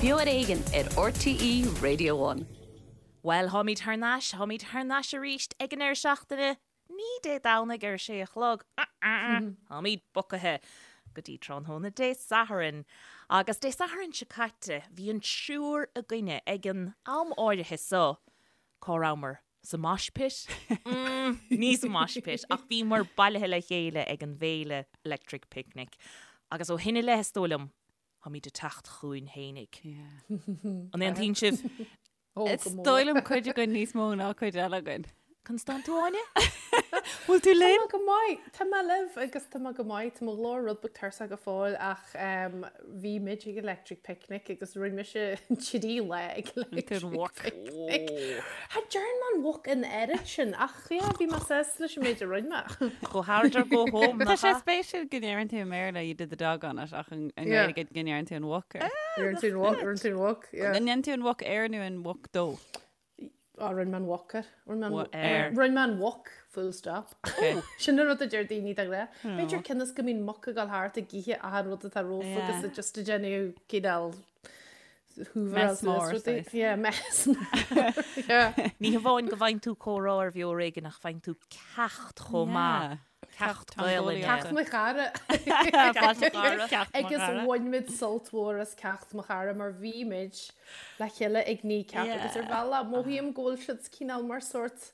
Beo ar Éigean ar RTÉ Radio One. Bhuel, táimid thar n-ais, táimid thar n-ais arís ag an deireadh seachtaine, ní Dé Domhnaigh ar a sé a chlog, táimid bogtha go dtí tráthnóna Dé Sathairn. Agus Dé Sathairn seo caite, bhí an triúr againne ag an am áirithe so, cá rabhamar? Sa mosh pit? Mm, ní sa mosh pit, ach bhíomar bailithe le chéile ag an bhféile Electric Picnic. Agus ó shin i leith, is dóigh liom, táimid ag teacht chugainn fhéinig. An aontaíonn sibh? Is dóigh liom cuid againn níos mó ná cuid eile againn. Conas tánn tú, Áine? Bhfuil tú linn? Tá mé go maith. Tá mé libh agus tá mé go maith. Tá mo ghlór rud beag tuirseach go fóill ach bhí muid ag Electric Picnic agus rinne mise trí lá ag Electric Picnic. Cha dtearn mé an walk an oiread sin ach yeah, bhí mé sásta leis an méid a rinne mé. Go hard or go home, Tá sé spéisiúil go ndeireann tú i mBéarla you did the dog on it ach i nGaeilge go ndeireann tú an walk air. Rinne tú an walk, rinne tú an walk, yeah. An ndéanann tú an walk air nó an walk dó? Á, rinne mé an walk air. Rinne mé an Rinne mé an walk, full stop. Sin an rud a deir daoine de ghnáth. B'fhéidir cionn is go mbíonn muc ag dul thart ag ithe achan rud atá rompu agus yeah. just ag déanamh cineál hoover Mess mór, saghas. Yeah, mess mór. Yeah. Ní hamháin go bhfaigheann tú comhrá ar Bheo Ar Éigean ach faigheann tú ceacht chomh maith. Ceacht Gaelainne. Ceacht mo chara. Agus bhain muid sult mhór as ceacht mo chara mar bhí muid le chéile ag Kneecap agus ar bhealach mothaím go bhfuil siad cineál mar sórt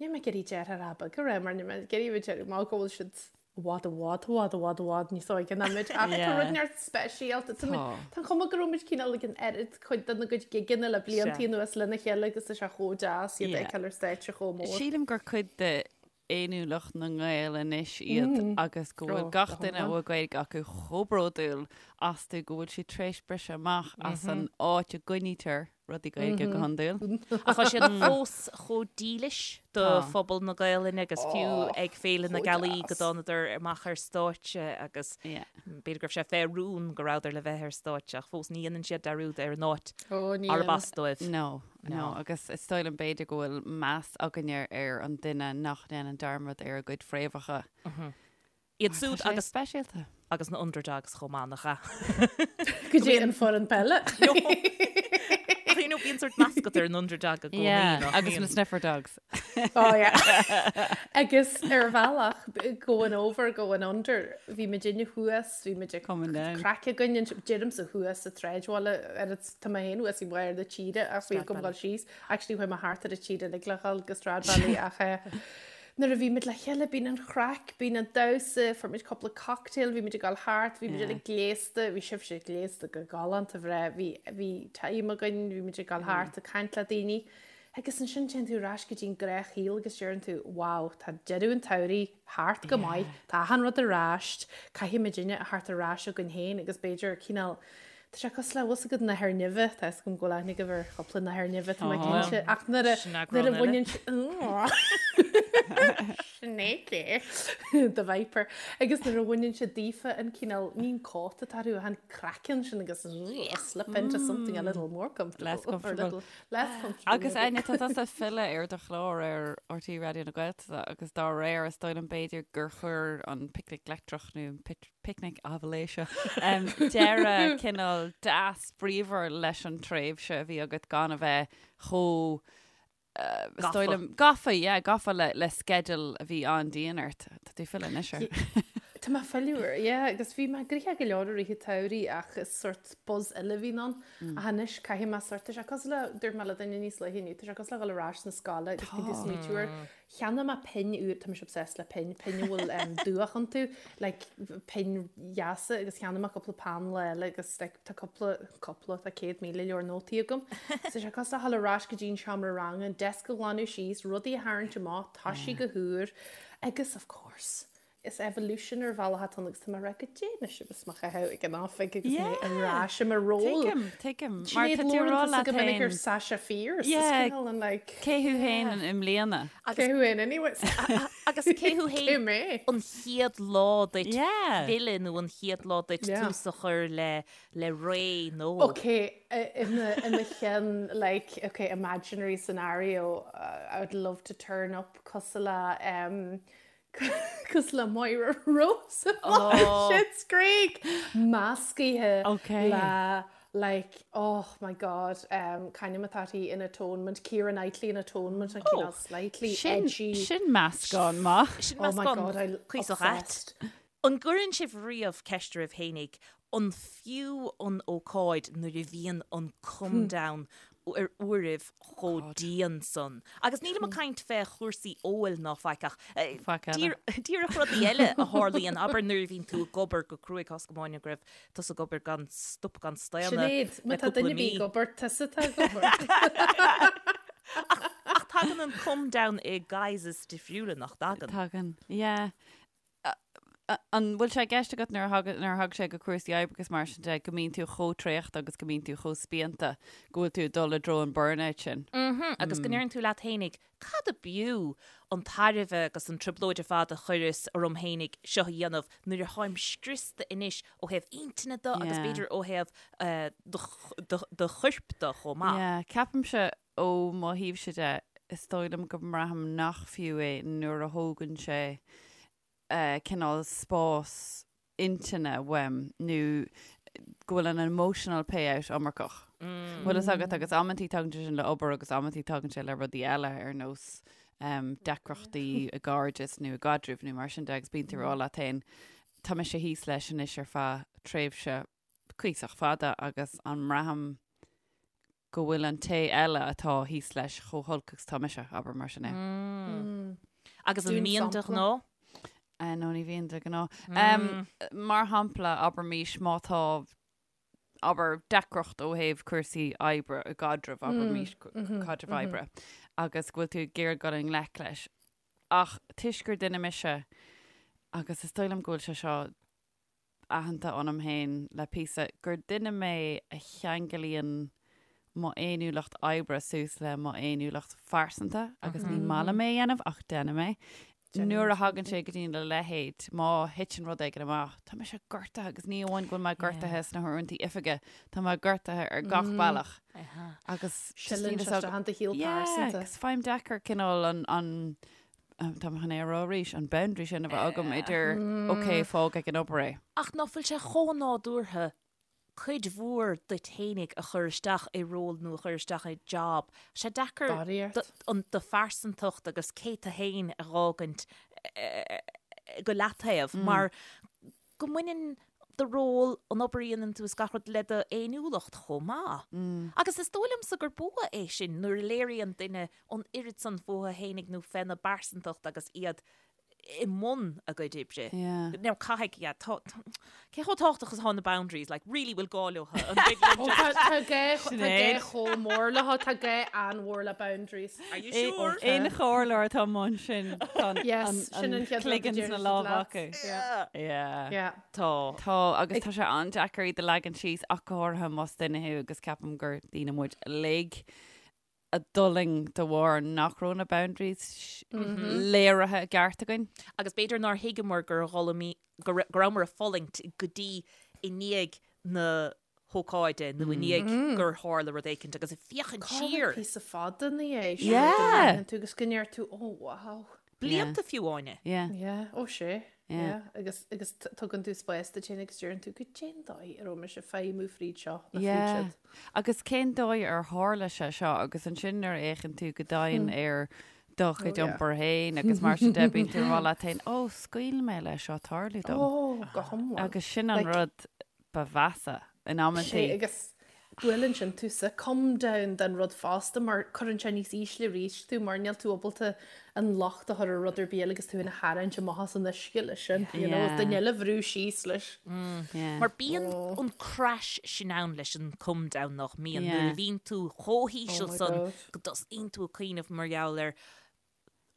níl mé ag iarraidh deartháir ab go raibh mar níl mé ag iarraidh bheith mar go bhfuil siad i bhfad i bhfad i bhfad i bhfad i bhfad níos óige ná muid ach tá rud neart speisialta Tá an chuma go raibh muid cineál ag an oiread cuid de na gcuid gigeanna le blianta anuas lena chéile agus tá sé chomh deas iad a fheiceáil ar stáitse chomh mór. Sílim gur cuid de fhéiniúlacht na nGael anois iad agus go bhfuil gach duine a bhfuil Gaeilge acu chomh bródúil astu go bhfuil siad tar éis briseadh amach as an áit a gcoinnítear rudaí Gaeilge go hiondúil. Ach tá siad fós chomh dílis do phobal na Gaelainne agus fiú ag Féile na Gealaí go dtánadar amach ar stáitse agus b'fhéidir go raibh sé fé rún go rabhadar le bheith ar stáitse ach fós ní dhéanann siad dearúd ar an áit arb as dóibh. No. No, agus is dóigh liom b'fhéidir go bhfuil meas againne ar an duine nach ndéanann dearmad ar a gcuid fréamhacha. Iad siúd agus speisialta. Agus na underdogs chomh maith, nach ea? Go dtí an foireann peile. Ach you know, bíonn sort mascot ar an underdog i gcónaí. Yeah, agus na sniffer dogs. Oh yeah. Agus ar bhealach, going over, going under, bhí muidinne thuas, bhí muid ag Coming down. craic againn, deirimse thuas sa tsráidbhaile, ar Tá mé féin thuas i mbarr na tíre ach bhí agam dul síos. Actually chuaigh mé thart ar an tír uilig le dhul go Stradbally ach eh, nuair a bhí muid le chéile bíonn an chraic, bíonn an damhsa, fuair muid cúpla cocktail, bhí muid ag dul thart, bhí muid uilig gléasta, bhí sibhse gléasta go galánta bhreá, bhí, bhí time againn, bhí muid ag dul thart ag caint le daoine. Agus ansin téann tú ar ais go dtí an gnáthshaol agus deireann tú, wow, tá deireadh an tsamhraidh thart go maith, tá achan rud ar ais, caithfidh muidinne a theacht ar ais againn féin agus b'fhéidir cineál, tá sé cosúil le, bhfuil 's agat nathair nimhe, tá 'fhios agam go bhfuil aithne agaibh ar chúpla nathair nimhe, tá mé cinnte, ach nuair a, nuair a bhaineann Snake, the viper, agus nuair a bhaineann sé daofa an cineál, ní an cóta atá orthu ach an craiceann sin agus slip into something a little more comfortable. Less comfortable. Less comfortable. Agus Áine, tá tusa ag filleadh ar do chlár ar RTÉ Raidió na Gaeltachta agus dá réir is dóigh liom b'fhéidir gur chuir an Picnic Leictreach nó an Picnic Aibhléise deireadh cineál deas bríomhar leis an tréimhse a bhí agat gan a bheith chomh is dóigh liom gafa, yeah, gafa le le sceideal a bhí an-dian ort. Tá tú ag filleadh anois air. Tá mé ag filleadh air, yeah, agus bhí mé gnoitheach go leor i rith an tsamhraidh ach is sort buzz eile a bhíonn ann. Ach anois caithfidh mé sort, tá sé cosúil le, dúirt mé le duine níos luaithe inniu, tá sé cosúil le dhul ar ais na scoile agus bíonn tú ag smaoitiú ar, cheannaigh mé pinn úr, tá mise obsessed le pinn, pinn a bhfuil um, dúch iontu, like pinn dheasa agus cheannaigh mé cúpla peann lá eile agus like, tá cúpla, cúpla, tá 100,000 leabhar nótaí agam. So tá sé cosúil le dhul ar ais go dtí an seomra ranga, an desk a ghlanadh síos, rudaí a tharraingt amach, toisí go húr agus of course, Is evolution ar bhealach atá ann agus tá mé ag rá goidé anois agus mo chaitheamh ag an oifig agus mé ar ais i mo ról. Tuigim, tuigim. Mar Sinéad tá tú ag rá Lauren leat go minic ar féin. Sasha Fierce. Is Yeah. cineál an like. Cé thú féin i mbliana? Cé thú féin anyways? Agus cé thú Cé féin mé? an chéad lá duit Yeah. filleadh nó an chéad lá duit Yeah. tús a chur le le ré nó. Ok, i mo i mo cheann like ok imaginary scenario uh, I would love to turn up cosúil le um, Cosúil le Moira Rose oh. Schitt's Creek meascaithe le Like, oh my God, um, c'ainm atá uirthi in Atonement, Keira Knightley in Atonement, an cineál slightly Sin, edgy. sin meascán maith. Sin Oh my meascán God, I'm cuíosach ait. obsessed. An gcuireann sibh riamh ceist oraibh fhéinig an fiú an ócáid nuair a bhíonn an come down ar uairibh chomh dian san? Agus nílim ag caint fé chúrsaí óil ná faic ach Faic eile. díreach rudaí eile a tharlaíonn, abair nuair a bhíonn tú ag obair go cruaidh, tá a fhios agam Áine go raibh tusa ag obair gan stop gan staonadh Sinéad, má le tá cúpla duine ar mí. bith ag obair, tusa atá ag obair. Ach tagann an come down i guises difriúla, nach dtagann? Tagann, yeah. An bhfuil sé i gceist agat nuair a thagann, nuair a thagann sé go cúrsaí oibre agus mar sin de, go mbíonn tú chomh traochta agus go mbíonn tú chomh spíonta go bhfuil tú ag dul i dtreo an burnout sin? Mhm, agus go ndeireann tú leat fhéinig, cad a b'fhiú an tairbhe agus an trioblóid ar fad a chuireas orm fhéinig seo a dhéanamh nuair a tháim scriosta anois ó thaobh intinne de agus Yeah. b'fhéidir ó thaobh eh, do, do, do choirp de chomh maith. Yeah, ceapaimse ó mo thaobhse de, is dóigh liom go mbraithim nach fiú é nuair a thógann sé cineál spás intinne uaim nó go bhfuil an emotional payout iomarcach. Bhfuil fhios agat agus amantaí tagann sé sin le obair agus amantaí tagann sé le rudaí eile ar nós deacrachtaí i gcairdeas nó i gcaidrimh nó mar sin de agus bíonn tú ag rá leat féin tá mise thíos leis anois ar feadh tréimhse cuíosach fada agus an mbraithim go bhfuil an té eile atá thíos leis chomh holc agus atá mise, abair mar sin é. Agus an Dún mbíonn de sampla. ghnáth? Eh, no, ní bhíonn de ghnáth. Mar shampla, abraimís má tá, abair, deacracht ó thaobh cúrsaí oibre i gcaidreamh, abraimís caidreamh oibre, agus go bhfuil tú ag iarraidh dul i ngleic leis. Ach toisc gur duine mise, agus is dóigh liom go bhfuil sé seo aitheanta ionam féin le píosa, gur duine mé a cheanglaíonn mo fhéiniúlacht oibre suas le mo fhéiniúlacht phearsanta agus ní maith liom é a dhéanamh ach déanaim é. Nuair a thagann sé go dtí a leithéid, má thiteann rud éigin amach, tá mise gortaithe agus ní amháin go bhfuil mé gortaithe sna huaireanta oifige, tá mé gortaithe ar gach bealach. Agus just Sileann níl sé fhios agam- isteach in do shaol Yeah, pearsanta. agus faighim deacair cineál an, an Tá mé chun é a rá arís, an boundary sin a bheith agam idir ok, fág ag an obair é. Ach ná fuil sé chomh nádúrtha cuid mhór duit fhéinig a chur isteach i ról nó a chur isteach i job. Sé deacair an do phearsantacht agus cé tú fhéin a dh'fhágaint go leataobh mar go mbaineann do ról, an obair a dhéanann tú is gach rud le do fhéiniúlacht chomh maith. Agus is dóigh liomsa gur bua é sin nuair a léiríonn duine an oiread san fúthu fhéinig nó féna bpearsantacht agus iad i mbun a gcuid oibre. Yeah. Now caithfidh, yeah, tá, cé chomh tábhachtach is atá na boundaries, like, really bhfuil gá leo, an dtig linn just- Tá gá tá gá Sinéad. chomh mór leo, tá gá an-mhór le boundaries. Are you sure? Aon chomhairleoir atá amuigh ansin tá an- Yes, an- sin an an chéad rud a cloigeann deir sna siad lámha leat. acu. Yeah. Yeah. Yeah. Tá. Tá, agus tá sé an-deacair iad a leagan síos ach go háirithe más duine thú agus ceapaim gur daoine muid uilig a d'fhulaing de bharr nach raibh na boundaries léirithe i gceart againn. Agus b'fhéidir nár thuigeamar gur dhul go rabhamar ag fulaingt go dtí i ndiaidh na hócáide nó i ndiaidh gur tharla rud éicint agus ag féachaint siar. Píosa fada ina dhiaidh sin Yeah. go ndéanann tú agus go ndeir tú oh wow. Blianta fiú Áine. Yeah. Yeah, ó sé. Yeah. Yeah. Agus, agus t- tugann tú spás duit féin agus deireann tú goidé an dóigh a raibh mise ag feidhmiú fríd seo nó fríd Yeah. siúd. Agus cén dóigh ar tharla sé seo agus ansin nuair a fhéachann tú go domhain ar do chuid Oh, yeah. iompair féin agus mar sin de bíonn tú ag rá leat féin, ó, scaoil mé leis seo tarlú dom. Ó, go hiomlán. Agus sin an Like- rud ba mheasa in Sé amantaí. agus buaileann sin tú sa come down den rud fosta mar cuireann sé níos ísle arís tú mar níl tú ábalta an locht a chur ar rud ar bith eile agus tú ina tharraingt amach as an uisce leis sin, you know, Yeah. duine eile a bhrú síos leis. Yeah. Mar bíonn an crash sin ann leis an come down nach mbíonn Yeah. nuair a bhíonn tú chomh híseal Oh my san God. go dtosaíonn tú ag cuimhneamh mar gheall ar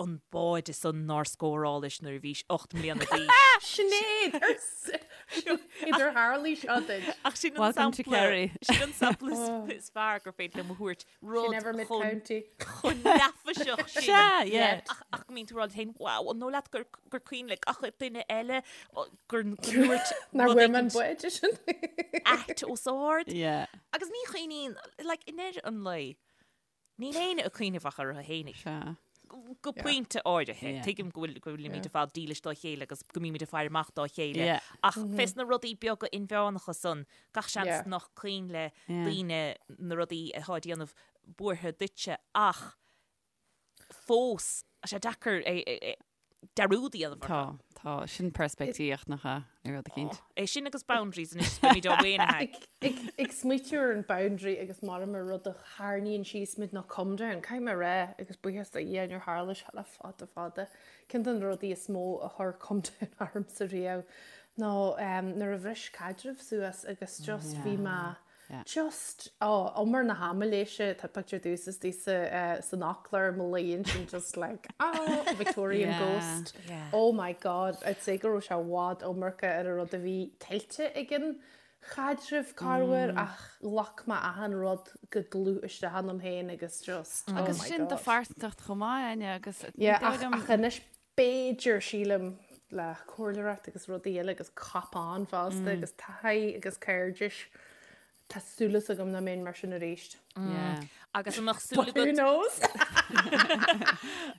an báide san nár scórálais nuair a bhís 8 mbliana d'aois. Sinéad! Idir tharlaigh seo duit. Ach sin an Welcome to sampla Kerry. sin an sampla is- is fearr gur féidir liom a thabhairt rud Never mid chomh county. chomh neafaiseach sin. Sea, yeah. Ach ach go mbíonn tú ag rá leat féin, wow, an dóigh leat gur gur cuimhin le gach duine eile o, gur go ndúirt Nár rud bhfuair mé an éicint báide sin. ait os ard. Yeah. Agus ní chuimhníonn, like, i ndeireadh an lae, níl éinne ag cuimhneamh ach orthu fhéinig. Sea. Go pointe áirithe. Tuigim go bhfuil go bhfuilimid ar fad dílis dá chéile agus go mbímid ag faire amach dá chéile. Ach fés na rudaí beaga inmheánacha san, gach seans nach cuimhin le daoine na rudaí atá ag déanamh buartha duitse ach fós, tá sé deacair é dearúd a dhéanamh orthu. Tá, tá. Sin peirspictíocht nach ea, ar rud eicínt. É sin agus boundaries anois, beimid á mhaoinithe. Ag smaoitiú ar an boundary agus mar mar rud a tharraingíonn síos muid nó come down, caithfidh mé a rá, agus buíochas do Dhia níor tharla sé le fada fada, ceann de na rudaí is mó a chuir come down ormsa riamh ná nuair a bhris caidreamh suas agus just bhí mé Just, oh, umar na haimiléise, tá pictiúr domhsa istigh sa, san fhoclóir, mo luí ansin just like, oh, Victorian Yeah. ghost. Yeah. Oh my God, I'd say go raibh sé i bhfad iomarca ar an rud a bhí tuillte ag an chaidreamh corruair ach ghlac mé achan rud go dlúth isteach ionam féin agus just, oh Agus my sin do God. phearsantacht chomh maith, Áine, agus ní Yeah, dóigh ach, liom- ach anois b'fhéidir, sílim, le comhairleoireacht agus rudaí eile agus cop-on fosta agus taithí agus cairdis, tá súil agam nach mbeinn mar sin arís. Yeah. Agus an mbeadh súil But who agat knows?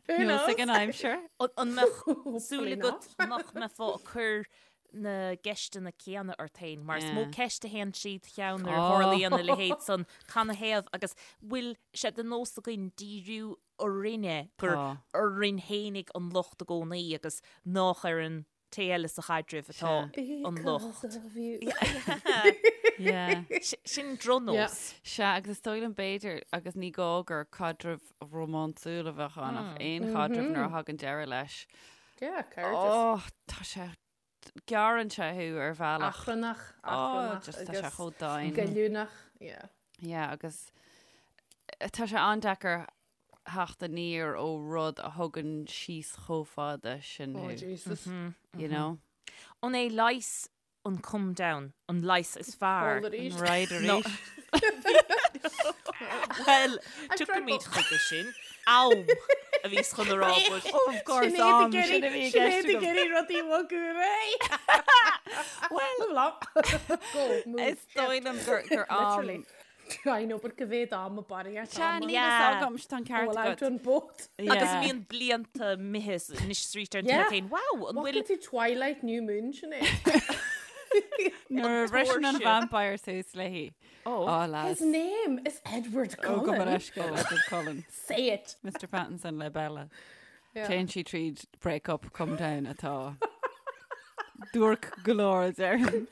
Who Knows knows? ag an aimsir. an mbeadh súil Hopefully agat not. nach mbeifeá ag cur na gceisteanna céanna ort féin, mar is mó Yeah. ceist a théann trí do cheann nuair a Oh. tharlaíonn a leithéid san canathaobh agus bhfuil sé de nós againn díriú orainne, gur Tá. orainn fhéinig an locht i gcónaí agus nách ar an té eile sa chaidreamh atá an locht. Because of you. Yeah. Sin drochnós. Sea, agus is dóigh liom b'fhéidir, agus ní gá gur caidreamh rómánsúil a bheadh ann, ach aon chaidreamh nuair a thagann deireadh leis. Yeah, cairdeas. Oh, tá sé, gearrann sé thú ar bhealach. Achrannach, Oh, achrannach just tá sé agus chomh domhain. goilliúnach, yeah. Yeah, agus tá sé an-deacair theacht aniar ó rud a thugann síos chomh fada sin Oh, thú, Jesus. you know? An é leigheas an come down, an leigheas is fearr? Ól arís. Right arís. Well, tiocfaimid chuige sin. Am a bhíos chun a rá, but Of course, am, sin a bhí i gceist Sinéad ag agam. iarraidh rudaí a bhogadh ar aghaidh. Well, go, move. Is dóigh liom gur gur am. Literally. I know, but go mhéad am a barraíocht Sea, ama. níl Yeah. fhios agam, tá an ceart Well, agat. I've done both. Agus Yeah. bíonn blianta imithe anois is arís ar an Yeah. taobh féin. Wow, an bhfuil Bhfuil tú Twilight New Moon sin é? Nuair a bhriseann an tóirse. vampire suas léi. Oh. Oh, lads. His name is Edward Oh, go Cullen. leithscéal, Edward Cullen. Say it. Mr Pattinson le Bella. Yeah. Téann sí tríd break up, come down atá. Duairc go leor a déarfainn.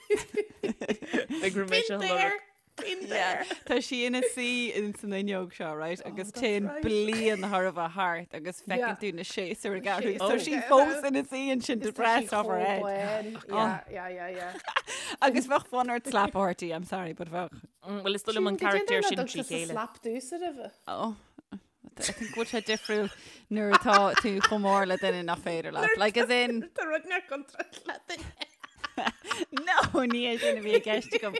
Ag raibh mé Been seo there. Been there. Tá sí ina suí in san fhuinneog seo, right? Agus Oh, that's téann right. bliain thar a bheith thart agus feiceann Yeah. tú na séasúir ag athrú. séasúir Tá sí ag fós athrú. ina suí ansin Is tá sí depressed off her chomh head. buan. Yeah, yeah, yeah, yeah. Agus bheadh fonn ort slap a thabhairt di, I'm sorry, but bheadh. Bhuel, is dóigh liom an carachtar sin trí chéile. Slap dús roimhe. Oh, I think bhfuil sé difriúil nuair atá tú chomh mór le duine nach féidir leat. Like as in, Tá rud nach contráilte le duine. No, ní é sin a bhí i gceist agam.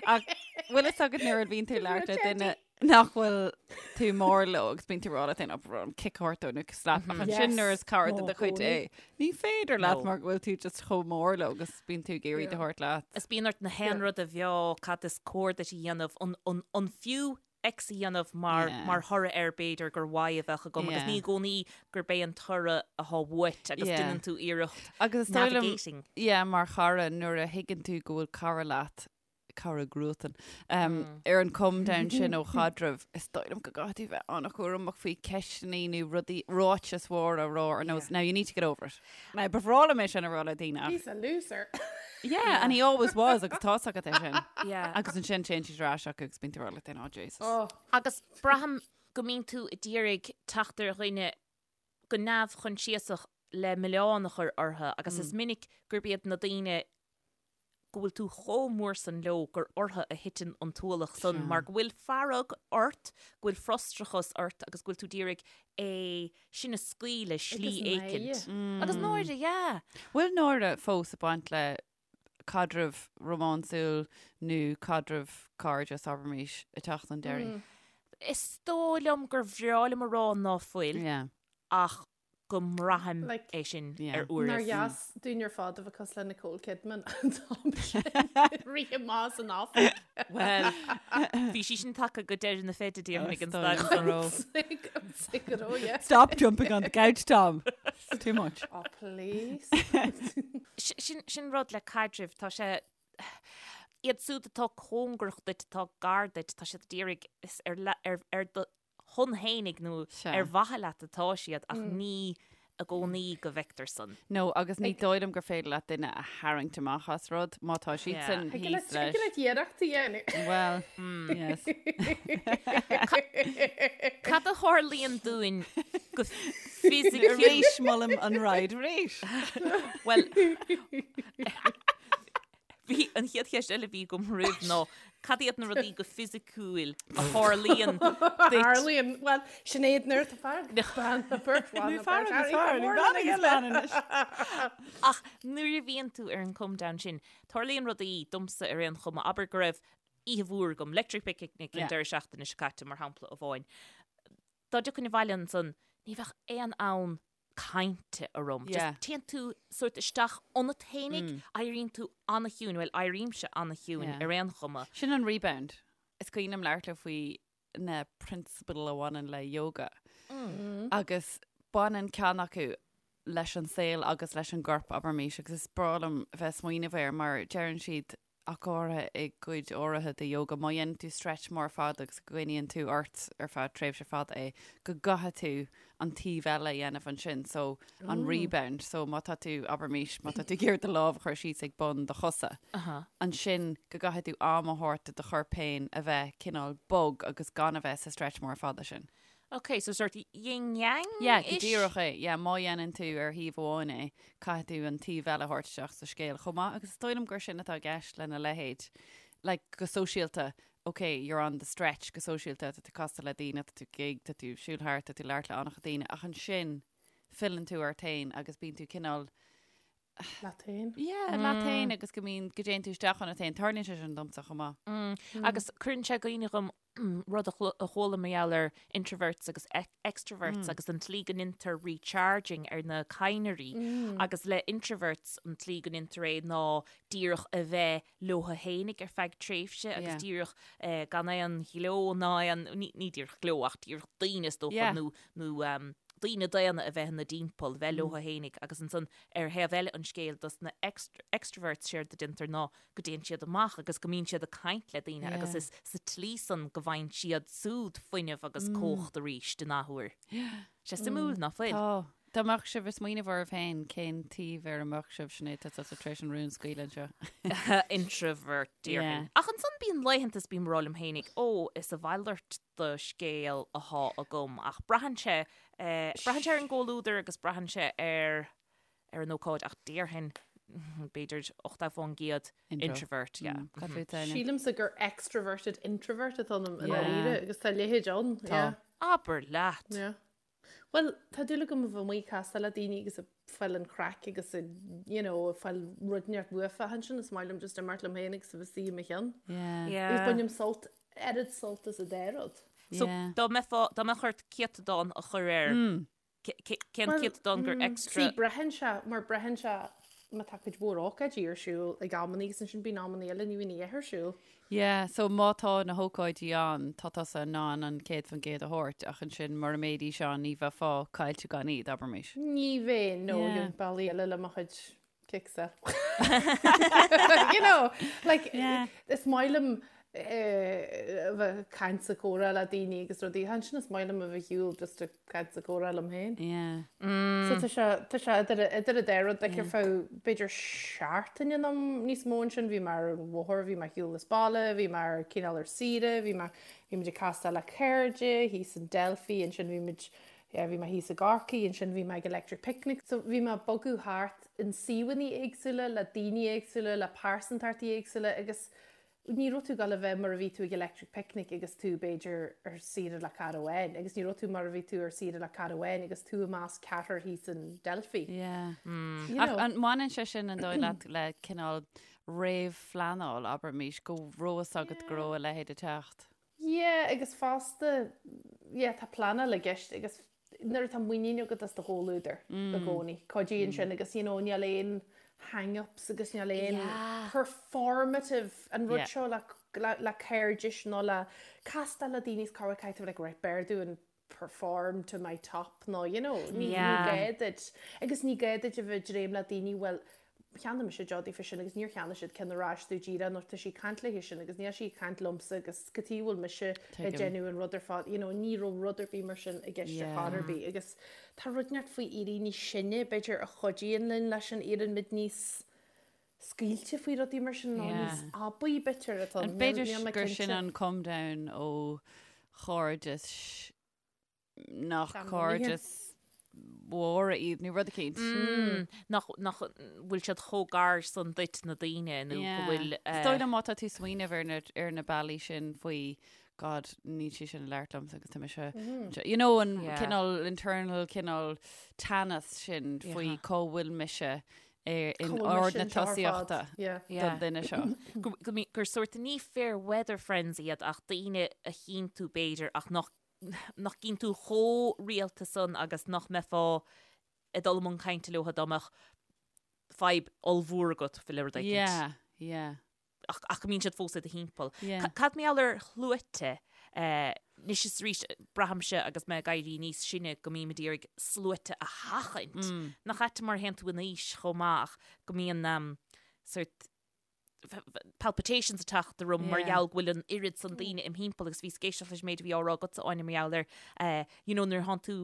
Ach bhfuil fhios agat nuair a bhíonn tú ag labhairt le duine nach bhfuil tú mór leo agus bíonn tú ag rá leat féin, "Oh, bro, kick a thabhairt dó nó slap. Ach ansin Yes. nuair is cara de Ó, do chuid gcónaí. é, ní féidir leat No. mar go bhfuil tú just chomh mór leo agus bíonn tú ag iarraidh iad a thabhairt leat. Is bíonn ort na haon rud a mheá cad is cóir duit a dhéanamh, an, an, an fiú X a dhéanamh mar, Yeah. mar thoradh air b'fhéidir gur Y a bheadh agam agus Yeah. ní i gcónaí gurb é an toradh atá uait agus Yeah. déanann tú iarracht Agus is dóigh liom, navigating. yeah, mar chara nuair a thuigeann tú go bhfuil cara leat, cara cruatan, um, ar an come down sin ó chaidreamh, is dóigh liom go gcaithfidh tú bheith an-chúramach faoi ceisteanna nó rudaí ráitis mhóra a rá ar nós, now you need to get over it. Now, ba bhreá liom é sin a rá le daoine ach He's a loser. Yeah, and he always was agus tá's agat é sin. Yeah. Agus ansin téann siad ar ais acu agus bíonn tú ag rá leat féin, oh Jesus. Oh, Agus braithim go mbíonn tú ag iarraidh teacht ar dhuine go neamhchoinsiasach le milleán a chur orthu agus is minic gurb iad na daoine go bhfuil tú chomh mór san leo gur orthu a thiteann an t-ualach san mar go bhfuil fearg ort, go bhfuil frustrachas ort agus go bhfuil tú ag iarraidh é sin a scaoileadh slí Agus éicint. náire. Agus náire, yeah. Bhfuil náire fós ag baint le caidreamh rómánsúil nó caidreamh cairdis, abraimis, ag teacht chun deiridh? Is dóigh liom gur bhreá liom a rá ná fuil Yeah. ach. go mbraithim é sin ar uairibh. Nár dheas dúinn ar fad a bheith cosúil le Nicole Kidman an t-am sin rith amach as an oifig. Bhuel, bhí sí sin tagtha go deireadh na feide déarfainn ag an staid san. Stop jumping on the couch, Tom. It's too much. Oh, please. Sin rud le caidrimh, tá sé iad siúd atá cóngarach duit, atá gar duit, tá siad d'iarraidh is ar ar do shon fhéinig nó ar mhaithe leat atá siad ach ní i gcónaí go bhfeictear san. No, agus ní dóigh liom gur féidir leat duine a tharraingt amach as rud má tá siadsan thíos leis. Thig leat iarracht a dhéanamh. Well, yes. Cad a tharlaíonn dúinn go fisiciúil? Arís, molaim an ride arís. Well, Bhí an chéad cheist eile a bhí agam roimh ná cad iad na rudaí go fisiciúil a tharlaíonn duit? Tharlaíonn, bhuel, Sinéad nuair atá fear agus bean na beirt bhan na beirt Fear agus fear, ní bean agus bean anois. Ach nuair a bhíonn tú ar an come down sin, tarlaíonn rudaí domsa ar aon chuma, abair go raibh oíche mhór agam, Electric Picnic an deireadh seachtaine seo caite mar shampla amháin. Dá dtiocfainn abhaile ansan, ní bheadh aon fhonn cainte orm. Yeah. Just téann tú sórt isteach ionat fhéinig, éiríonn tú an-chiúin, bhuel, éirímse an-chiúin Yeah. ar aon chuma. Sin an rebound. Is cuimhin liom labhairt leo faoi na prionsabail a bhaineann le yoga. Agus baineann ceann acu leis an saol agus leis an gcorp, abraimis, agus is breá liom bheith ag smaoineamh air mar deireann siad ach go háirithe i gcuid áirithe de yoga, má dhéanann tú stretch mór fada agus go gcoinníonn tú ort ar feadh tréimhse fada é, go gcaithfidh tú an taobh eile a dhéanamh ansin, so an rebound. So má tá tú, abraimis, má tá tú ag iarraidh do lámh a chur síos ag bun do chosa, ansin go gcaithfidh tú am a thabhairt do do chorp féin a bheith cineál bog agus gan a bheith sa stretch mór fada sin. Ok, so sort yin yang Yeah, go díreach é. Yeah, má dhéanann tú ar thaobh amháin é, caithfidh tú an taobh eile a thabhairt isteach sa scéal chomh maith agus is dóigh liom gur sin atá i gceist lena leithéid. Like, go sóisialta, ok, you're on the stretch go sóisialta, tá tú casta le daoine, tá tú gig, tá tú siúl thart, tá tú labhairt le an-chuid daoine, ach ansin filleann tú ort féin agus bíonn tú cineál Leat féin. Yeah, leat féin agus go mbíonn, go dtéann tú isteach ionat féin. Tarlaíonn sé sin domsa chomh maith. Agus cuireann sé i gcuimhne dhom rud a chuala mar gheall ar introverts agus extroverts agus an tslí go ndeintear recharging ar na cadhnraí agus le introverts an tslí go ndeintear é ná díreach a bheith leo fhéinig ar feadh tréimhse agus díreach gan aon ghleo ná aon, ní díreach gleo ach díreach daoine is dócha nó nó daoine daonna a bheith ina dtimpeall, bheith leo fhéinig agus ansan ar thaobh eile an scéil dos na extroverts séard a deintear ná go dtéann siad amach agus go mbíonn siad ag caint le daoine agus is sa tslí san go bhfaigheann siad súd fuinneamh agus cumhacht arís in athuair. Sé suimiúil, ná fuil? Tá. Dá mbeadh sibh ag smaoineamh oraibh féin, cén taobh ar a mbeadh sibh, Sinéad, tá tusa tar éis an rún a scaoileadh anseo. Introvert, déarfainn. Ach ansan bíonn laethanta is bím ag rá liom fhéinig, ó, is a mhalairt de scéal athá agam. Ach braitheann sé, braitheann sé ar an gcomhluadar agus braitheann sé ar ar an ócáid ach déarfainn b'fhéidir 80% introvert, yeah. Cad fút Áine? Sílimse gur extroverted introvert atá ionam i ndáiríre agus tá a leithéid ann. Tá. Yeah. Abair leat! Yeah. Bhuel, tá dúil agam a bheith amuigh ag castáil le daoine agus ag fáil an chraic agus ag, you know, ag fáil rud inteacht uafa ansin is maith liom just imeacht liom féin agus a bheith istigh i mo cheann. Yeah. Yeah. Agus bainim sult, oiread sult as an dá rud. So, Yeah. dá mbeifeá, dá mbeadh ort céatadán a chur air, Cén céatadán gur extra? See, braitheann sé, mar braitheann sé má tá cuid mhór ócáidí ar siúl ag amannaí agus ansin bíonn amannaí eile ní bhíonn a dhath ar siúl. Yeah, so má tá na hócáidí ann, tá tusa in ann an 100% a thabhairt ach ansin mura mbeidís ann ní bheifeá caillte gan iad, abraimis. Ní bheinn, no, Yeah. gheobhainn bealaí eile le mo chuid kicks a. You know, like, Yeah. is maith liom eh, a bheith ag caint is ag comhrá le daoine agus rudaí. Ansin is maith liom a bheith ar shiúl just ag caint is ag comhrá liom féin. Yeah. So tá sé, tá sé idir, idir an dá rud, like ar feadh b'fhéidir seachtaine nó níos mó ansin, bhí mé ar an bhóthar, bhí mé ar shiúl as baile, bhí mé ar cineál ar saoire, bhí mé, bhí muid ag castáil le cairde, thíos in Delphi, ansin bhí muid Yeah, bhí mé thíos i gCorcaigh, ansin bhí mé ag Electric Picnic. So bhí mé ag bogadh thart in suíomhanna éagsúla, le daoine éagsúla, le pearsantachtaí éagsúla agus ní raibh tú ag dul a bheith mar a bhí tú ag Electric Picnic agus tú b'fhéidir ar saoire le cara amháin agus ní raibh tú mar a bhí tú ar saoire le cara amháin agus tú i measc ceathrar thíos in Delphi. Yeah. You Ach know. an mbaineann sé sin an dóigh leat le cineál réamhphleanáil, abraimis, go raibh fhios agat go raibh a leithéid ag teacht? Yeah, agus fosta, yeah, tá pleanáil i gceist agus nuair atá muinín agat as do chomhluadar i gcónaí, cuidíonn sin agus you know níl aon hang-ups agus níl aon performative an rud seo le le cairdis nó le castáil le daoine is corruair caithfidh tú like right b'fhearr dúinn perform to my top nó you know ní gá duit agus ní gá duit a bheith ag dréim le daoine bhuel cheannaigh mise deoch daofa sin agus níor cheannaigh siad ceann ar ais domh díreach nó tá sí ag caint léi sin agus níl sí ag caint liomsa agus cad chuige a bhfuil mise ag déanamh an rud ar fad you know ní raibh rud ar bith mar sin i gceist ar chor ar bith agus tá rud inteacht faoi éirí níos sine b'fhéidir a chuidíonn linn leis sin éiríonn muid níos scaoilte faoi rudaí mar sin nó níos aibí b'fhéidir atá B'fhéidir gur sin an come down ó chairdeas nach cairdis mhóra iad nó rud eicínt. Nach nach bhfuil siad chomh gar san duit na daoine nó go bhfuil. Is dóigh liom má tá tú ag smaoineamh ar na ar na bealaí sin faoi God níl sí sin ag labhairt liomsa agus tá mise you know an cineál internal cineál teannas sin faoi cá bhfuil mise in ord na tosaíochta don duine seo. Gur sórt ní fair weather friends iad ach daoine a chíonn tú b'fhéidir ach nach nach gcíonn tú chomh rialta san agus nach mbeifeá ag dul i mbun cainte leo dá mbeadh fadhb ollmhór agat faoi le rud éicint. Yeah, yeah. Ach, ach go mbíonn siad fós i do thimpeall. Yeah. Cad mar gheall ar shluaite? Anois is arís, braithimse agus mé ag éirí níos sine go mbím ag iarraidh sluaite a sheachaint. Mm. Nach ait mar a théann tú in aois chomh maith ach go mbíonn um, sort palpitations ag teacht orm mar gheall go bhfuil an oiread san daoine im thimpeall agus bhíos ag éisteacht leis an méid a bhí á rá agatsa Áine mar gheall ar eh, you know nuair atánn tú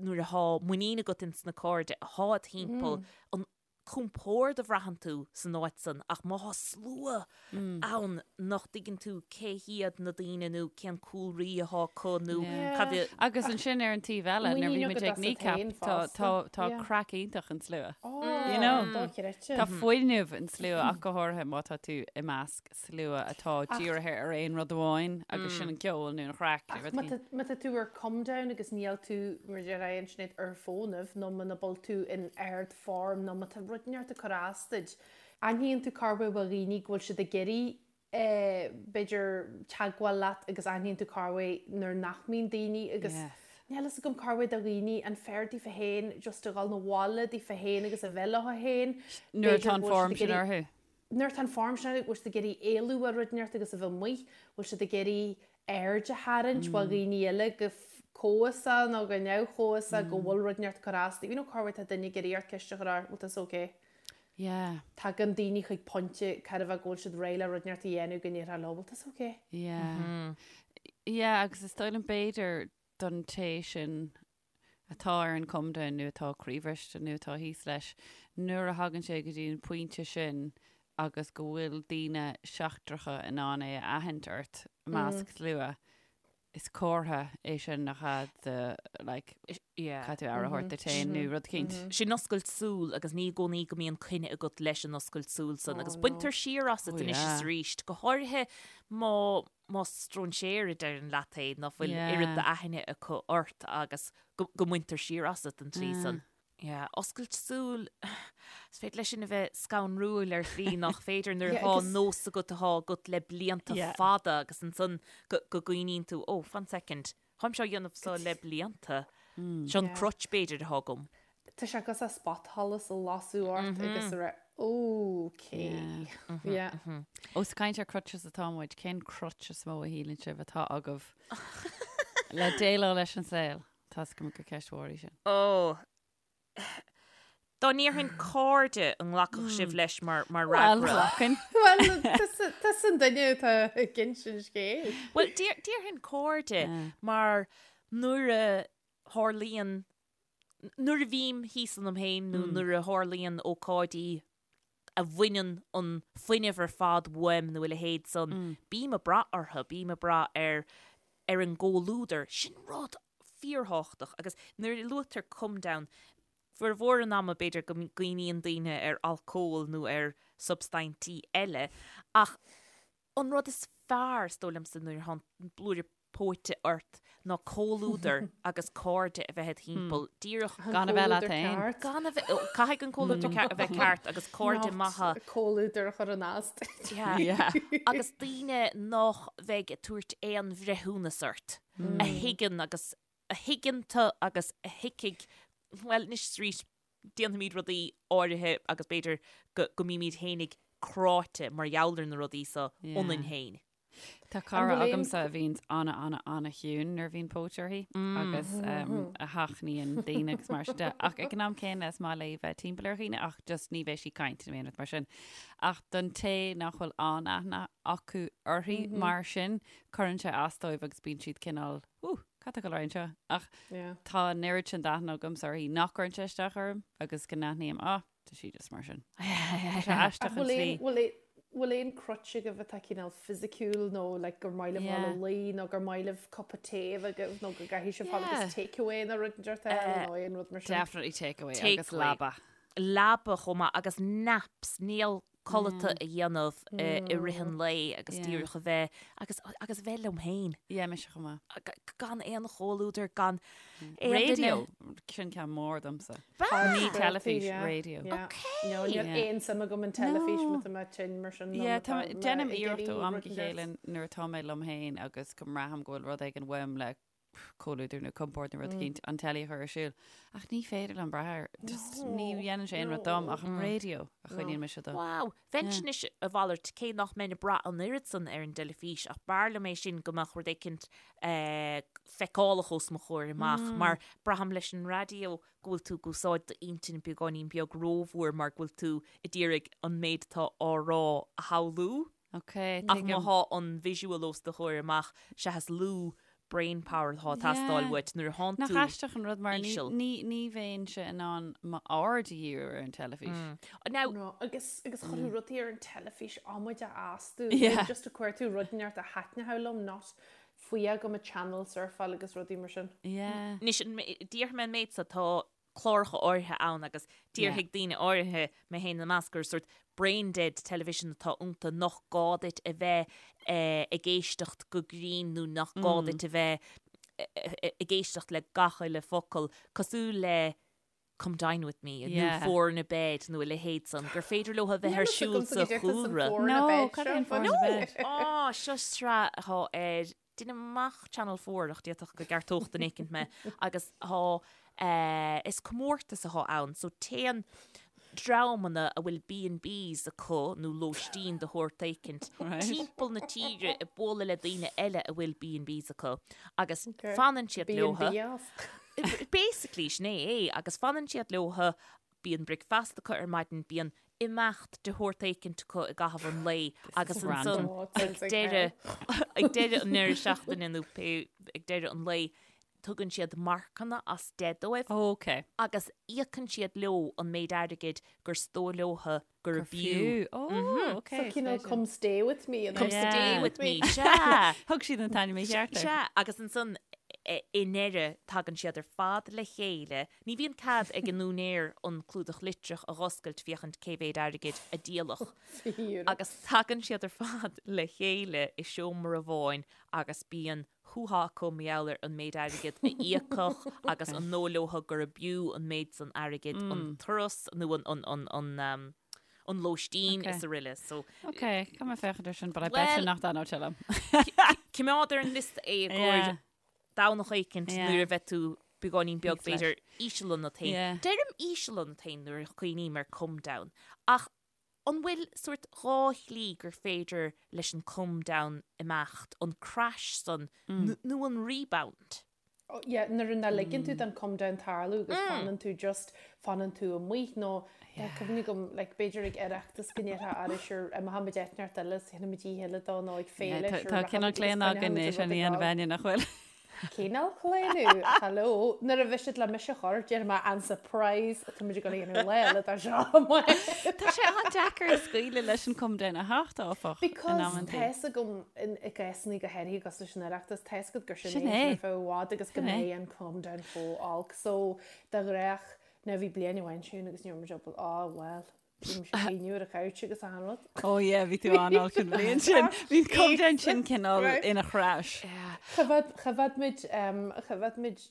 nuair athá muinín agat ins na cairde athá id thimpeall an compord a bhraitheann tú san áit san ach má thá slua ann nach dtuigeann tú cé hiad na daoine nó cén cúlraí athá acu nó cad a Agus ansin ar an taobh eile nuair a bhí muid ag Kneecap tá tá tá craic iontach an slua. You know? Dochreidte. Tá fuinneamh an slua ach go háirithe má tá tú i measc slua atá dírithe ar aon rud amháin agus sin an ceol nó an chraic nó rud éigin. Má tá tú ar come down agus níl tú, mar a deir an Sinéad, ar fónamh nó muna bhfuil tú in ard-form nó má tá rud inteacht ag cur as duit, aithníonn tú corruair ó dhaoine go bhfuil siad ag iarraidh b'fhéidir, teagmháil leat agus aithníonn tú corruair nuair nach mbíonn daoine agus níl fhios agam corruair do dhaoine an fearr daofa féin just a dhul 'na bhaile daofa féin agus a bheith leo féin. Nuair atá an form sin orthu. Nuair atá an form sin orthu, bhfuil siad ag iarraidh éalú ó rud inteacht agus a bheith amuigh, bhfuil siad ag iarraidh aird a tharraingt ó dhaoine eile go comhfhiosach nó go neamhchomhfhiosach go bhfuil rud inteacht ag cur as dóibh. You know corruair tá duine ag iarraidh ort ceist a chur ort, bhfuil tusa okay? Yeah. Tagann daoine chuig pointe corruair go bhfuil siad réidh le rud inteacht a dhéanamh go ndéarfá leo, bhfuil tusa okay? Yeah. Yeah, agus is dóigh liom b'fhéidir don té sin atá ar an come down nó atá croíbhriste nó atá thíos leis, nuair a thagann sé go dtí an pointe sin agus go bhfuil daoine seachtracha in ann é a aithint ort i measc slua, Is comhartha é sin nach ea de like Yeah. caithfidh tú aire a thabhairt duit féin nó rud eicínt. Sin oscailt súl agus ní i gcónaí go mbíonn coinne agat leis an oscailt súl san agus baintear siar asat Oh, anois yeah. is arís, go háirithe má má stróinséir a deireann leat é ná fuil Yeah. oiread d'aithne acu ort agus go go mbaintear siar asat an tslí san. Yeah, oscailt súl, is féidir leis sin a bheith scanrúil ar shlí nach féidir nuair atá nós agat atá agat le blianta fada agus ansan go go gcuimhníonn tú, oh, fan second, táimse á dhéanamh seo le blianta, seo an crutch b'fhéidir atá agam. Tá sé cosúil le spotsholas a lasadh ort agus a rá, okay. Yeah. Ós ag caint ar crutches atá muid, cén crutch is mó a shíleann sibh atá agaibh le déileáil leis an saol? Tá a fhios agam gur ceist mhór í sin. Ó. Dá ndéarfainn cairde an nglacfadh sibh leis mar mar Bhuel, fhreagra? ghlacfainn. Bhuel, tusa an duine atá ag insint scéil. Bhuel, déarfainn cairde mar nuair a tharlaíonn, nuair a bhím thíos ionam féin nó nuair a tharlaíonn ócáidí a bhaineann an fuinneamh ar fad uaim nó a leithéid san, bím ag brath orthu, bím ag brath ar ar an gcomhluadar. Sin rud fíorthábhachtach agus nuair a luaitear come down, formhór an ama b'fhéidir go gcuimhníonn daoine ar alcól nó ar substaintí eile ach An rud is fearr, is dóigh liomsa, nuair atá an blúire póite ort ná comhluadar agus cairde a bheith id thimpeall, díreach. Gan a bheith leat féin. Gan a bheith, caithfidh an comhluadar a bheith ceart agus cairde maithe. Comhluadar a chur in as duit. Yeah. Agus daoine nach bheidh ag tabhairt aon bhreithiúnas ort, a thuigeann agus. a thuigeann tú agus a thuigfidh, bhuel, anois is arís, déanfaimid rudaí áirithe agus b'fhéidir go go mbímid fhéinig cráite mar gheall ar na rudaí so ionainn féin. Tá cara agamsa a bhíonns ana ana ana chiúin nuair a bhíonn póit uirthi agus a sheachnaíonn daoine agus mar sin de. Ach ag an am céanna is maith léi bheith timpeall ar dhaoine ach just ní bheidh sí ag caint nó aon rud mar sin. Ach don té nach bhfuil an-aithne acu uirthi mar sin, cuireann sé as dóibh agus bíonn siad cineál, Ooh, cad tá ag dul ar aghaidh anseo? Ach tá an oiread sin d'aithne agamsa uirthi nach gcuireann sé isteach orm agus go n-aithním, ah, tá sí just mar sin. Tá sé aisteach an tslí. Bhfuil aon crutch agaibh atá cineál fisiciúil nó like gur maith libh dul a luí nó gur maith libh cupa tae a bheith agaibh nó go gcaithfidh sibh fáil agus take away nó rud inteacht eile nó aon rud mar sin? Definitely take away agus leaba. Leaba chomh maith agus naps, níl codlata a dhéanamh i rith an lae agus díreach a bheith agus agus a bheith liom féin. Yeah, mise chomh maith. Gan aon chomhluadar, gan aon duine. Radio, sin ceann mór domsa. Ní teilifís, radio. Ok. No, níl aon suim agam in teilifís má tá mé tinn mar sin. Yeah, tá, déanaim iarracht ó am go chéile nuair atá mé liom féin agus go mbraithim go bhfuil rud éigin uaim le comhluadar nó compord nó rud eicínt, an teilí a chur ar siúl. Ach ní féidir liom brath air. Just ní dhéanann sé aon rud dom ach an raidió a choinníonn mise dó. Wow. Bheinnse anois a mhalairt, cé nach mbeinn ag brath an oiread san ar an dteilifís, ach b'fhearr liom é sin go mbeadh rud éicint feiceálach os mo chomhair amach, mar braithim leis an raidió go bhfuil tú ag úsáid d'intinn beagáinín beag rómhór mar go bhfuil tú ag iarraidh an méid atá á rá a shamhlú. Ok, Ach má tuigim. thá an visual os do chomhair amach, sea is lú brain power atá ag teastáil uait nuair a thánn Nach tú aisteach an rud mar ní, íseal. ní, ní bheinnse in ann m'aird a dhíriú ar an teilifís. Now, No, agus, agus chuirfeadh rudaí ar an teilifís amaide astu. Yeah. Just a chuir tú rud inteacht a thaitneodh liom, not faoi go mba channel surfáil agus rudaí mar sin. Yeah. Anois, déarfaidh mé an méid so, tá cláracha áirithe ann agus déarfaidh daoine áirithe, mé féin ina measc, gur sórt brain dead television atá iontu, nach gá duit a bheith ag éisteacht go grinn nó nach gá duit a bheith ag éisteacht le gach uile focal, cosúil le Come Dine With Me nó Four in a Bed nó a leithéid san, gur féidir leo a bheith ar siúl sa chúlra. No, cad é an Four in a Bed? Á, seo sraith atá ar Déanaim amach Channel 4 ach d'fhéadfadh go gceartódh duine éicint mé agus tá eh, is comórtas atá ann so téann dreamanna a bhfuil B&Bs acu nó lóistín de shórt éicint Right. timpeall na tíre ag bualadh le daoine eile a bhfuil B&Bs acu agus fanann siad leotha. B&B off. Basically sin é é agus fanann siad leotha Bíonn bricfeasta acu ar maidin, bíonn imeacht de shórt éicint acu i gcaitheamh an lae agus ansan ag deireadh ag deireadh an deireadh seachtaine nó pé ag deireadh an lae tugann siad marcanna as 10 dóibh Ok. agus íocann siad leo an méid airgid gur dóigh leotha gurb fhiú. Ó, ok. So cineál come stay with me. Come stay with me, sea. Thug siad an t-ainm mícheart air. Sea, agus ansan i ndeireadh tagann siad ar fad le chéile. Ní bhíonn cead ag an úinéir an clúdach litreach a dh'oscailt féachaint cé mhéad airgid a díoladh. Agus tagann siad ar fad le chéile i seomra amháin agus bíonn hú-há acu mar gheall ar an méid airgid a íocadh agus an dóigh leotha gurb fhiú an méid san airgid an turas nó an lóistín is araile. So Ok, caithfidh mé féachaint ar sin, but I bet you nach dtaitneodh sé liom. Coimeád ar an liosta é i gcomhair Domhnach éicint nuair a bheidh tú beagáinín beag b'fhéidir íseal ionat féin. Deirim íseal ionat féin nuair a chuimhním ar come down ach An bhfuil sórt dhá shlí gur féidir leis an come down imeacht, an crash san nó an rebound? Oh yeah, nuair nach ligeann tú don come down tarlú agus fanann tú just, fanann tú amuigh nó tá cuimhne agam like b'fhéidir ag Oireachtas go ndéarfá ara sure imeochaimid áit inteacht eile is dhéanfaimid oíche eile dó nó ag féile Tá sure tá cineál rachaimid agus claonadh againn coinneochaimid é an sin a rud ag dhéanamh gabháil. Áine, nach bhfuil? Cineál claonadh, hello. Nuair a bheidh siad le mise a chur, déarfaidh mé an surprise atá muid ag dul a dhéanamh lá eile dá seo amuigh. Tá sé an-deacair scaoileadh leis an come down a theacht, áfach, in Because amantaí. tá fhios agam in i gcásanna go háirithe agus leis an Oireachtas, tá fhios agat gur sin Sin é é. ar feadh i bhfad agus go Sin é. mbeidh an come down chomh olc. So, de ghnách, now bhí bliain amháin sin agus ní raibh muid ábalta, oh well. Bhí mise ag caoineadh ar an couch agus achan rud. Oh yeah, bhí tú an-olc an bhliain sin. Bhí an come down sin cineál ina chrash. Choimhéad, choimhéad muid, um, choimhéad muid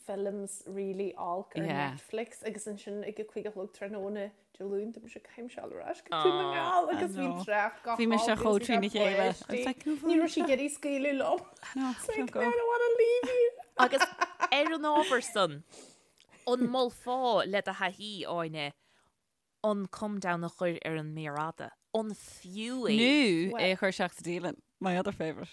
films really olc ar Yeah. Netflix agus ansin ag a 5 a chlog tráthnóna Dé Luain tá mise caithfidh mise dul ar ais go Dún na nGall agus bhí know. trácht go Bhí mise holc chomh agus bhí trína chéile. páistí. I was like, Ní raibh sí ag iarraidh scaoileadh liom. No, It's like, don't go. I don't want to leave you. Agus Ar an ábhar san, an molfá le do thaithí, Áine, an come down a chur ar an méar fhada? An fiú é? Nó é a chur isteach sa dialann. My other favourite.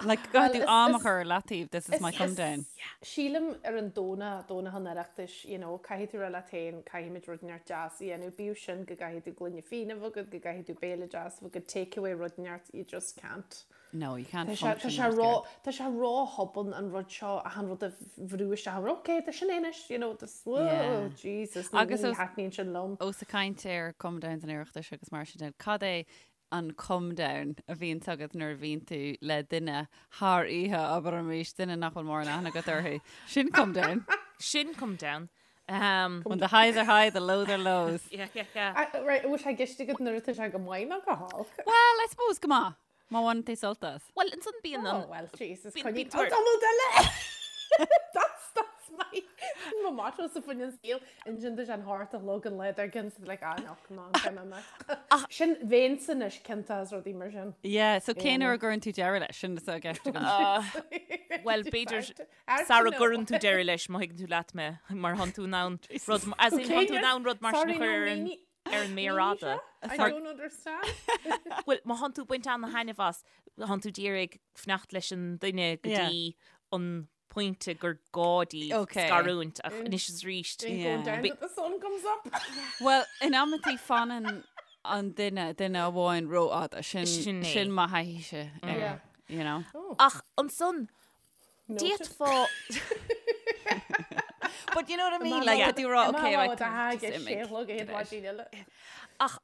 Like, go tú am a chur ar leataobh, this is my come down. Sílim ar an Domhnach, Domhnach an Oireachtais, you know, caithfidh tú rá leat féin, caithfimid rud inteacht deas a dhéanamh, bíodh sin go gcaithfidh tú gloine fíona a bheith agat, go gcaithfidh tú béile deas a bheith agat, take away rud inteacht, you just can't. No, you can't Tá sé, tá function sé that ró, good. tá sé ró-thobann an rud seo, achan rud a bhrú isteach, ok, tá sin é anois, you know, this, whoa, Yeah. Jesus, ní, Agus ní os- thaitníonn sin liom. Ós ag caint ar come downs an Oireachtais agus mar sin de, cad é an come down a bhíonns agat nuair a bhíonn tú le duine thar oíche, abraimis, duine nach bhfuil mórán aithne agat orthu. Sin come down. Sin come down. Um, When the highs are high, the lows are lows. yeah, yeah, yeah. Ah, Right, bhfuil sé i gceist agat nuair atá sé go maith nó go holc? Well, I suppose go maith. Má bhaineann tú sult as. Well, ansan bíonn Oh, an... well, Jesus, Bíonn- coinnigh bíonn tor- tamall eile! That's, that's my, my motto sa faoin saol. Ansin tá sé an hocht a chlog an lá dár gcionn, so like, ah, no, come on, come on, mate. Sin bhéinn anois cinnte as rudaí mar sin. Yeah, so cén uair a gcuireann tú deireadh leis? Sin atá i gceist agam. Well, b'fhéidir sara gcuireann tú deireadh leis, má thuigeann tú leat mé, mar thánn tú in ann rud, as in, thánn tú in ann rud mar sin a chur ar an, ar an méar fhada. I don't understand. Bhuel, má thánn tú ag baint ana-thaitneamh as, thánn tú d'iarraidh fanacht leis an duine go dtí an pointe gur gá daoibh Okay. scarúint ach anois is arís. Ain't going down till the sun comes up. Well, in amantaí fanann an duine, duine amháin rófhada. Sin, Sin é. sin mo thaithíse air, Yeah. you know. Ach ansan, d'fhéadfá... But you know what I mean? Like, tá tú ag rá, okay, like, like, just imigh. Ach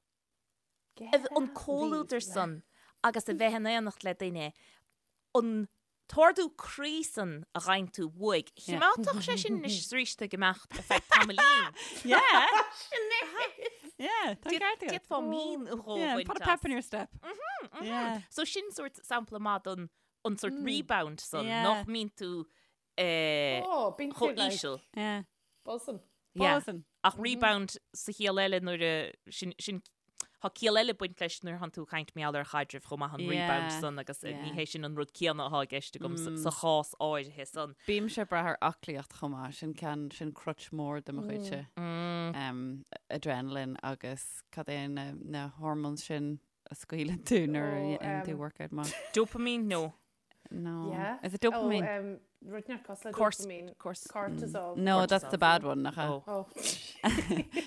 an comhluadar san agus a bheith in éineacht le duine, an t-ardú croí san a gheibheann tú uaidh, chimeádfadh sé sin anois is arís ag imeacht ar feadh tamaillín. Yeah. Yeah, tá ceart agat. D'fhéadfá mí nó dhó Yeah, a bhaint put a as. pep in your step. Yeah. So sin sórt sampla maith don an sórt rebound san, Yeah. nach mbíonn tú eh, Oh, bíonn tú chomh like íseal. Yeah. buzzing. Yeah. Buzzing. Ach rebound sa chiall eile nuair a sin sin tá ciall eile ag baint leis nuair thánn tú ag caint mar gheall ar chaidreamh chomh maith an rebound Yeah. san agus eh, ní Yeah. hé sin an rud céanna atá i gceist agam sa sa chás áirithe san. Bímse ag brath ar aclaíocht chomh maith, sin ceann, sin crutch mór de mo chuidse. Um, adrenaline agus cad é na, na hormones sin a scaoileann tú nuair a Oh, dhéanann tú um, workout maith. Dopamine? No. No. Yeah. Is it dopamine? Oh, um, rud inteacht cosúil le Cors- dopamine. cors- Cortisol. No, that's the bad one, nach ea? Oh. Oh.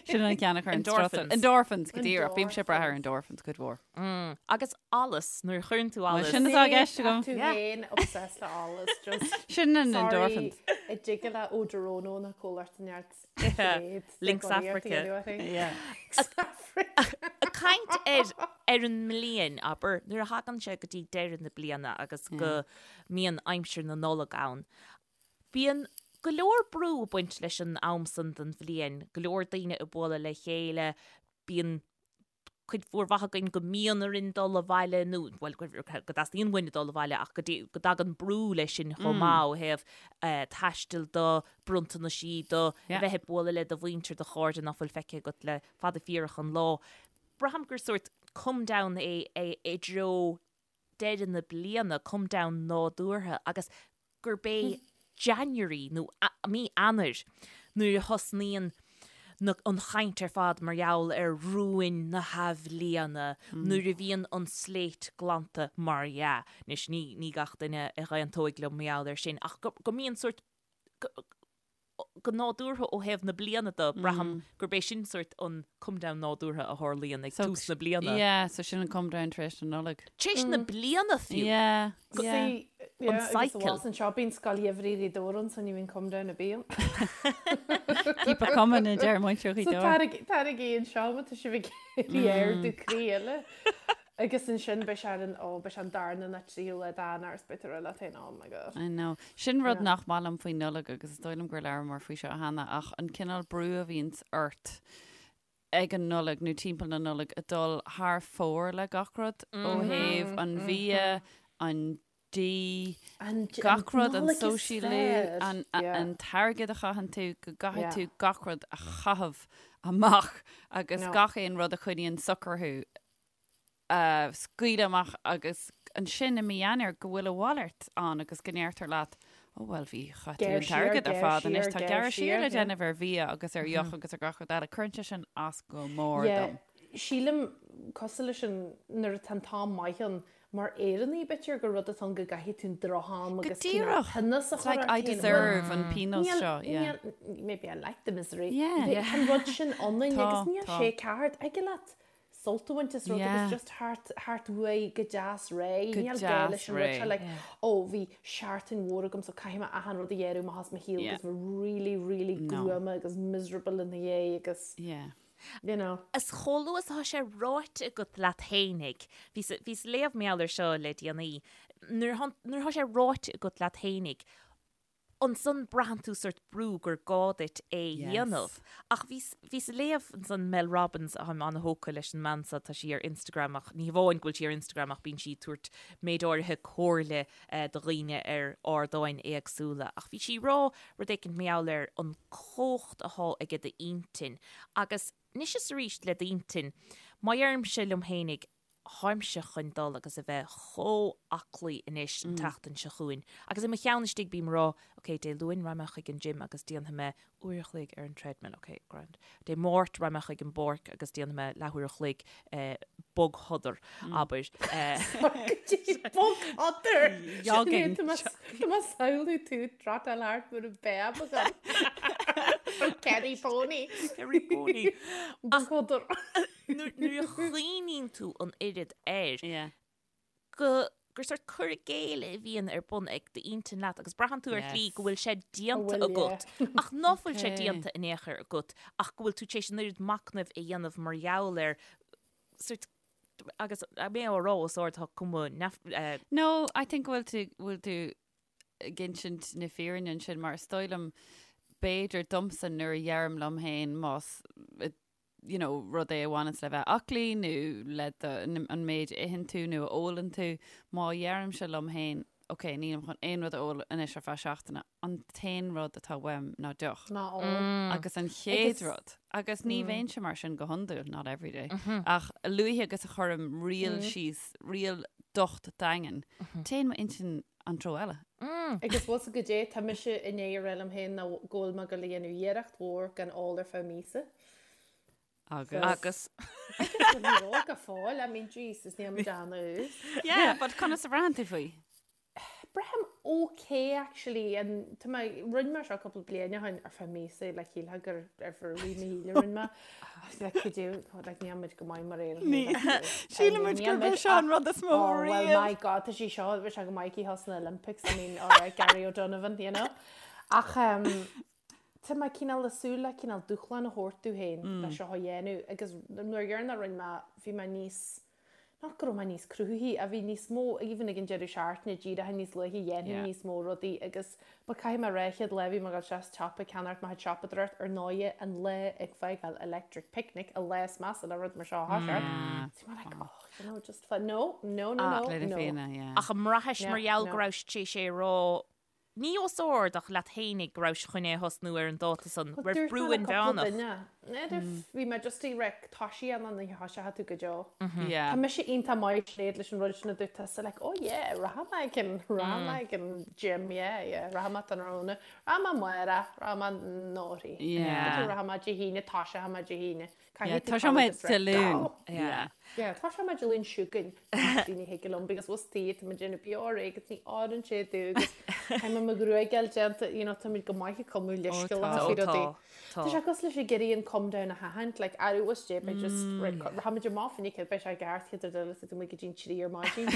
Sin an ceann a chuireann strus ort. Endorphins. Endorphins, go díreach. Bímse ag brath ar endorphins cuid mhór. Mm. Agus allas, nuair a chuireann tú allas. sin atá i gceist agam. Tú Yeah. féin obsessed le allas. Just Sin an sorry, endorphins. I dtig le Odorono na comhlacht neart. Yeah. Lynx Africa. Yeah. Ag caint ar ar an mbliain, abair, nuair a thagann sé go dtí deireadh na bliana agus go mbíonn aimsir na Nollag ann, bíonn go leor brú ag baint leis an am san den bhliain, go leor daoine ag bualadh le chéile, bíonn cuid mhór mhaith againn go mbíonn orainn dul abhaile nó, bhuel, go dteastaíonn uainn dul abhaile ach go go dtagann brú leis sin chomh maith ó thaobh taistil de, bronntanaisí de, a bheith ag bualadh le do mhuintir, do chairde nach bhfuil feicthe agat le fada fíorach an lá. Braithim gur sórt come down é i dtreo deireadh na bliana, come down nádúrtha agus gurb é January nó mí Eanáir nuair a thosnaíonn na, an chaint ar fad mar gheall ar rúin na hathbhliana, nuair a bhíonn an slate glanta mar dhea. Anois ní, ní gach duine a aontóidh liom mar gheall air sin ach go, go mbíonn sórt, go, go nádúrtha ó thaobh na bliana de, braithim gurb é sin sórt an come down nádúrtha a tharlaíonn ag tús na bliana. Yeah, so sin an come down tar éis na Nollag. Tar éis na bliana fiú. Yeah, yeah. See, yeah, An cycle. Agus anseo bíonn scoil gheimhridh Ghaoth Dobhair ann, so ní bhíonn come down ar bith ann. Keep it coming a deir muintir Ghaoth So Dobhair. tarraigí anseo má tá sibh ag iarraidh ardú croí eile. Agus ansin beidh sé ar an, ó, beidh sé an darna nó tríú lá d'Eanáir is beidh tú ag rá leat féin, oh my god. I know. Sin rud Yeah. nach maith liom faoi Nollaig agus is dóigh liom gur labhramar faoi seo cheana ach an cineál brú a bhíonns ort ag an Nollaig nó timpeall na Nollag ag dul thar fóir le gach rud ó thaobh an bhia, an dí, An, gach rud, an Nollaig is sóisialú, fearr. an, Yeah. an t-airgead a chaitheann tú, go gcaithfidh Yeah. tú gach rud a chaitheamh amach agus No. gach aon rud a choinníonn socair thú a scaoileadh amach agus ansin i mí Eanáir go bhfuil a mhalairt ann agus go ndeirtear leat, ó bhuel bhí chaith tú Gearr an siar, t-airgead ar gearr fad anois siar, tá gearr gearradh siar siar, le yeah. déanamh ar bhia agus ar dheoch agus ar gach rud eile. Cuireann sé sin as go mór Yeah, dom. sílim cosúil leis an nuair atá an t-am maith ann mar Éireannaigh b'fhéidir gur rud atá ann go gcaithfidh tú an drocham Go agus cineál díreach. tinneas a It's chur like ort I féin. deserve an pionós Níl, seo, yeah. níl, maybe I like the misery. Yeah. Bhí an rud sin ionainn Tá, agus níl tá. sé ceart. Thig leat sult a bhaint as rud Yeah. agus just thart, thart uaidh go deas réidh. Go Níl gá deas leis an rud seo réidh. like, ó bhí seachtain mhór agam so caithfidh mé achan rud a ghearradh amach as mo shaol Yeah. agus bheith really, really No. gruama agus miserable ina dhiaidh agus, Yeah. you know. Is chomh luath is atá sé ráite agat leat fhéinig, bhíos, bhíos ag léamh mar gheall air seo le déanaí, nuair atá, nuair atá sé ráite agat leat fhéinig, ansan braitheann tú sórt brú gur gá duit é a dhéanamh. Ach bhíos, bhíos ag léamh ansan Mel Robbins, táim an-thógtha leis an mbean seo, tá sí ar Instagram ach ní hamháin go bhfuil sí ar Instagram ach bíonn sí ag tabhairt méid áirithe comhairle do dhaoine ar ardáin éagsúla. Ach bhí sí ag rá rud éicint mar gheall ar an chumhacht athá aige d'intinn agus anois is arís le d'intinn, má dheirimse liom fhéinig, Táimse chun dul agus a bheith chomh aclaí anois an tseachtain seo chugainn. Agus i mo cheann istigh bím ag rá, ok, Dé Luain raghaidh mé chuig an gym agus déanfaidh mé uair a chloig ar an treadmill, ok, grand. Dé Máirt raghaidh mé chuig an bpáirc agus déanfaidh mé leathuair a chloig bogshodar, abair. Bogshodar! Jogging. Tá mé ag samhlú tú ag trotáil thart mar an béab agam. Kerry Pony. Kerry Pony. Bogshodar. Nuair a chuimhníonn tú an oiread air, go gur sórt cur i gcéill a bhíonn ar bun ag d'intinn leat agus braitheann tú ar shlí go bhfuil sé déanta agat ach ná fuil sé déanta in aon chor agat ach go bhfuil tú tar éis an oiread machnaimh a dhéanamh mar gheall air sórt agus mé á rá os ard tá cuma neamh. No, I think go bhfuil tú, bhfuil tú ag insint na fírinne ansin mar is dóigh liom b'fhéidir domsa nuair a dheirim liom féin más you know, rud é a bhaineanns le bheith aclaí nó le do, an méid a itheann tú nó a ólann tú, má dheirimse liom féin, ok, nílim chun aon rud a ól anois ar feadh seachtaine, an t-aon rud atá uaim ná deoch. Ná ól. Agus an chéad rud, agus ní bheinnse mar sin go hiondúil, not every day, ach a luaithe agus a chuirim riail síos, riail docht daingean, téann m'intinn an treo eile. Agus bhfuil 's agat goidé, tá mise i ndiaidh a rá liom féin ná go bhfuil mé ag dul a dhéanamh iarracht mhór gan ól ar feadh míosa. Agus. Agus. Agus ní raibh go fóill, I mean, Jesus, níl muid an-ús. Yeah, but conas a bhraitheann tú faoi? Braithim okay actually, and tá mé, rinne mé seo cúpla bliain ó shin ar feadh míosa, like shílfeá gur ar feadh rith mo shaoil a rinne mé. Like could you, like níl muid go maith mar Éireannaigh. Sílim muid gurb é seo an rud is mó Oh, well, riamh. my God, tá sé seo, bhí sé go maith aici thall sna Olympics, I mean, all right, Gary O'Donovan, you know. Ach, um, Tá mé cineál ag súil le cineál dúshlán a thabhairt domh féin le seo a dhéanamh agus nuair dheireanach a rinne mé bhí mé níos, not go raibh mé níos cruthaithí ach bhí níos mó, even ag an deireadh seachtaine díreach níos luaithe dhéanfainn níos mó rudaí agus but caithfidh mé a rá chéad lá bhí mé ag dul isteach sa tsiopa ag ceannacht mo chuid siopadóireacht ar ndóighe an lá ag fágáil Electric Picnic an lá is measa le rud mar seo a thoiseacht. Bhí mé like oh you know just fun no no no no no. Ach an mbraithis mar gheall go rabhais tar éis é a rá Ní os ard ach leat fhéinig go rabhais chun é a thosnú ar an dáta san, raibh brú inmheánach. N'fheadar, bhí mé just ag rá tá sí ann an oíche thoiseoidh tú go deo. Tá mise iontach maith Sinéad leis an rud sin a dúirt tusa like oh yeah rachaidh mé ag an rachaidh mé ag an gym yeah yeah rachaidh mé tráthnóna rachaidh mé amárach rachaidh mé anóirthi rachaidh mé Dé hAoine toiseoidh mé Dé hAoine. Yeah, toiseoidh mé Dé Luain. Yeah. Yeah, toiseoidh mé Dé Luain seo chugainn. Ní thig liom because bhfuil tí tá muid déanamh beo réidh agus ní oireann sé domh agus tá mé mo ghruaig a fháil déanta, you know, tá muid go maith ag cumadh leithscéalacha faoi rudaí. Tá sé cosúil leis ag iarraidh an come down a sheachaint, like, arú is dé, beidh just, right, rachaimid amach fá choinne céad, beidh sé i gceart chéad rud eile is tú amuigh go dtí an trí ar maidin.